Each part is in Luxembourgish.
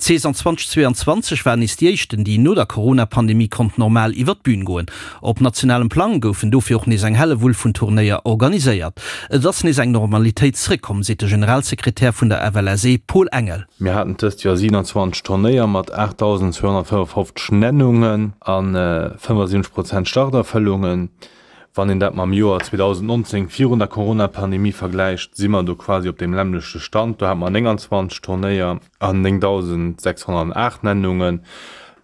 D'Saison 2022 war nees déi éischten, déi no der Corona-Pandemie konnt normal iwwer d'Bün goen. Op nationalem Plang goufen dofir och nees eng Hellewull vun Turnéier organiséiert. Et ass nees eng Normalitéit zeréckkomm, seet de Generalsekretär vun der FLSE Paul Engel. Mir haten dëst Joer 27 Turnéier mat 8.255 Nennungen a 75 Prozent Starterfëllungen. Wann een dat mam Joer 2019 virun der Corona-Pandemie vergläicht, si mer do quasi op deem lämmlechte Stand. Do hate mer 29 Turnéier an 9.608 Nennunge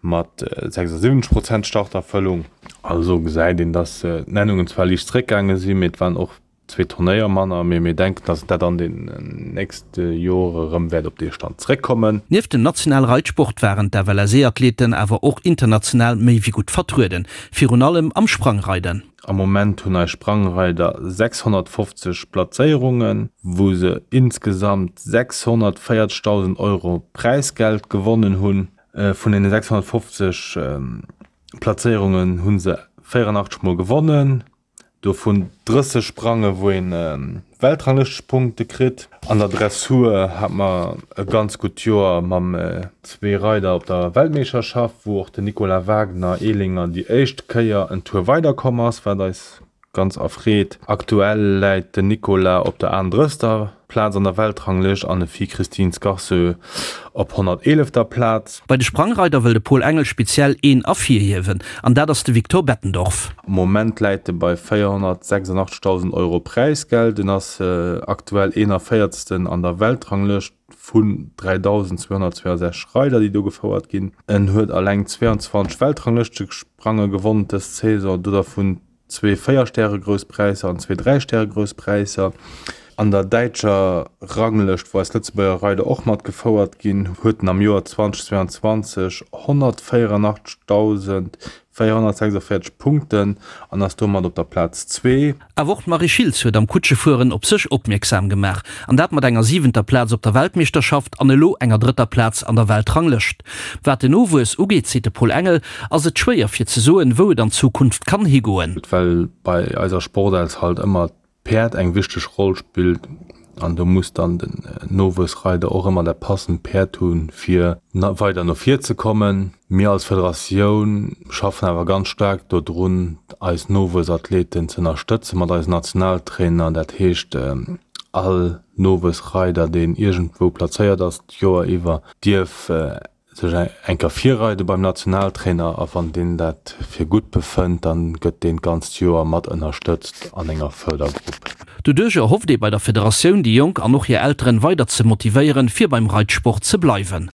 mat 76 Prozent Starterfëllung. Also gesäit een, dass d'Nennungen zwar liicht zeréckgaange sinn, mee et waren och zwee Turnéier manner, mee mir denken, dass dat an den nächste Jore erëm wäert op dee Stand zeréckkommen. Nieft dem nationale Reitsport waren d'FLSE-Athleten awer och international méi wéi gutt vertrueden, virun allem am Sprangreiden. Am Moment hunn eis Sprangreider 650 Platzéierungen, wou se insgesamt 640.000 Euro Präisgeld gewonnen hunn. Vun deene 650 Platzéierungen hu se 84 mol gewonnen. Dovun 30 Sprange wou een Weltranglëschtepunkte kritt. An der Dressur hat mer e ganz gutt Joer mam zwee Reider op der Weltmeeschterschaft, wou och den Nicolas Wagner, Ehlinger, déi éischt Kéier en Tour weider komm ass, wat eis ganz erfreet. Aktuell läit den Nicolas op der 38. Plaz an der Weltranglëscht an de Fi Christine Scarceux op 111. Plaz. Bei de Sprangreider wëll de Paul Engel speziell een ervirhiewen an dat ass de Victor Bettendorf. Am Moment läit e bei 486.000 Euro Präisgeld. En ass aktuell 41. An der Weltranglëscht vun 3.262 Reider, déi do gefouert ginn. En huet eleng 22 Weltranglëschtesprange gewonnen dës Saison, do dervun zwee Véier-Stäre-Grouss Präisser an zwee Dräi-Stäre-Grouss Präisser. An der däitscher Ranglëscht, wou eis Lëtzebuerger Reider och mat gefouert ginn, huet en am Joer 2022 184.446 Punkten an ass domat op der Plaz zwee. Awer och d'Marie Schiltz huet am Kutschefueren op sech opmierksam gemaach, an dat mat enger siwenter Plaz op der Weltmeeschterschaft an elo enger drëtter Plaz an der Weltranglëscht. Wat den Nowuess ugeet, seet de Paul Engel, ass et schwéier fir ze soen, wou et an Zukunft kann higoen. Well bei eiser Sportels halt ëmmer d'Päerd eng wichteg Roll spillt an do muss dann den Nowuessreider och ëmmer dat passend Päerd hunn, fir weider no vir ze kommen. Mir als Federatioun schaffen awer ganz staark dodrun, eis Nowuessathleten ze ënnerstëtzen mat eisen Nationaltrainer. Dat heescht, all Nowuessreider, deen iergendwou plazéiert ass d'Joer iwwer, dierf sech eng Kéier virreide beim Nationaltrainer a wann deen dat fir gutt befënnt, dann gëtt deen d'ganzt Joer mat ënnerstëtzt an enger Fërdergrupp. Doduerch erhofft ee bei der Federatioun, déi Jonk an och hir Elteren weider ze motivéieren, fir beim Reitsport ze bleiwen.